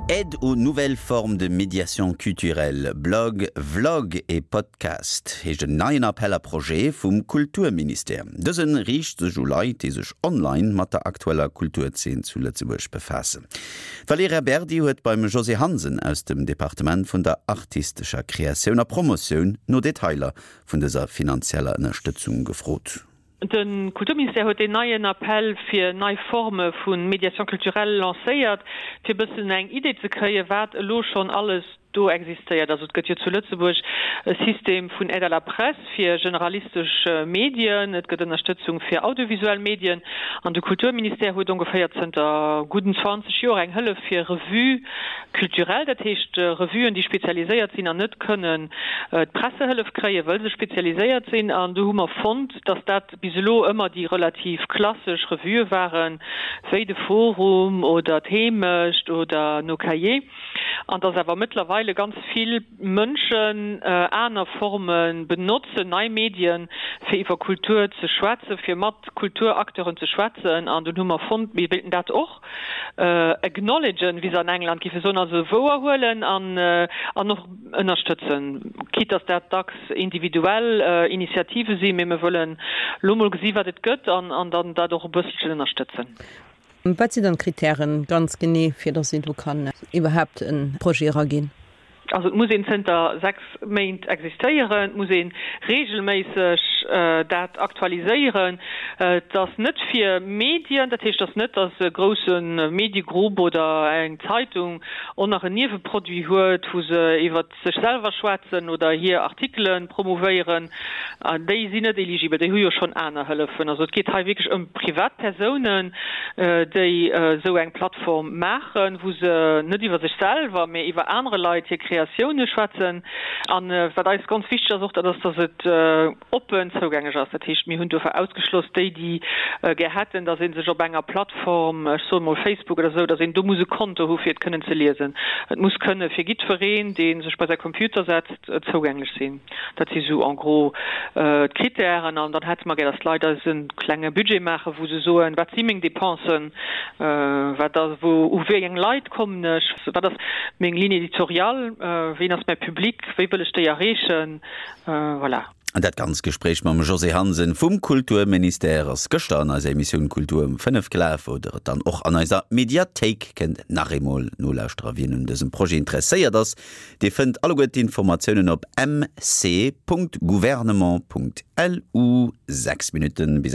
Aide aux nouvelles formes de médiation culturelle, Blog, Vlog et Podcast heescht en neien Appel à projets vum Kulturministère. Dëse riicht sech u Leit, déi sech online mat der aktueller Kulturzeen zu Lëtzebuerg befaassen. D'Valerija Berdi huet beim Josée Hansen aus dem Departement vun der artistescher Kreatioun a Promotioun no Detailer vun dëser finanzieller Ënnerstëtzung gefrot. De Kulturministère huet deen neien Appell fir nei Forme vu Médiation culturelle lancéiert, fir e bëssen eng Idee ze kréien, wat elo schonn alles do existéiert. Also et gëtt jo zu Lëtzebuerg e System vun Aide à la presse fir generalistesch Medien, et gëtt Ënnerstëtzung fir audiovisuell Medien an de Kulturministère huet ongeféier zënter gudden 20 Joer eng Hëllef fir Revues culturelles, dat heescht Revuen, déi spezialiséiert sinn an net kënnen d'Pressehëllef kréien, wëll se spezialiséiert sinn. An do hu mer fonnt, dass dat bis elo ëmmer déi relativ klassesch Revuë waren, wéi de Forum oder d'Heemecht oder Nos Cahiers, an dass awer mëttlerweile ganz vill Mënschen aner Forme benotzen, nei Medien, fir iwwer Kultur ze schwätzen, fir mat Kulturacteuren ze schwätzen. An dunn hu mer fonnt, mir wéilten dat och acknowledgen, wéi se an England géife soen, also wouerhuelen an och ënnerstëtzen, quitte dass dat dacks individuell Initiative sinn, mee mir wëllen elo mol gesi wat et gëtt an dann dat och e bësselchen ënnerstëtzen. Wat sinn dann d'Kritären ganz genee, fir dass een do kann iwwerhaapt e Projet eraginn? Also et muss een zënter 6 Méint existéieren, et muss ee reegelméisseg dat aktualiséieren. Et ass net fir Medien, dat heescht, et ass net, dass e grousse Mediegrupp oder eng Zeitung och nach en Nieweproduit huet, wou se iwwer sech selwer schwätzen oder hir Artikele promouvéieren, déi sinn net eligibel, déi hu jo schonn aner Hëllefen. Also et geet hei wierklech ëm Privatpersounen, déi esou eng Plattform maachen, wou se net iwwer sech selwer, mä iwwer anere Leit hir Kreatioune schwätzen. A wat eis ganz wichteg ass och, dat ass, datt et oppen zougänglech ass. Dat heescht, mir hunn dofir ausgeschloss déi, déi gär hätten, datt ee sech op enger Plattform, ech soen emol Facebook oder esou, datt een do muss e Konto hu fir et kënnen ze liesen. Et muss kënne fir jiddwereen, dee sech bei säi Computer setzt, zougänglech sinn. Dat si sou en gros d'Krittären. An dann hätte mer gär, datt d'Leit eis e klenge Budget maachen, wou se soen, wat si meng Dépensen, wat ass, wou, u wéi eng Leit kommen ech, wat ass meng Ligne éditoriale, ween ass mäi Public, wéi wëll ech déi erreechen. Voilà. An dat ganz Gespréich mam Josée Hansen vum Kulturministère ass gëschter an eiser Emissioun Kultur um 5 gelaf, wou der et dann och an eiser Mediathéik kënnt nach eemol nolauschteren. Wien un dësem Projet interesséiert ass, dee fënnt alleguer d'Informatiounen op mc.gouvernement.lu. 6 Minutten bis.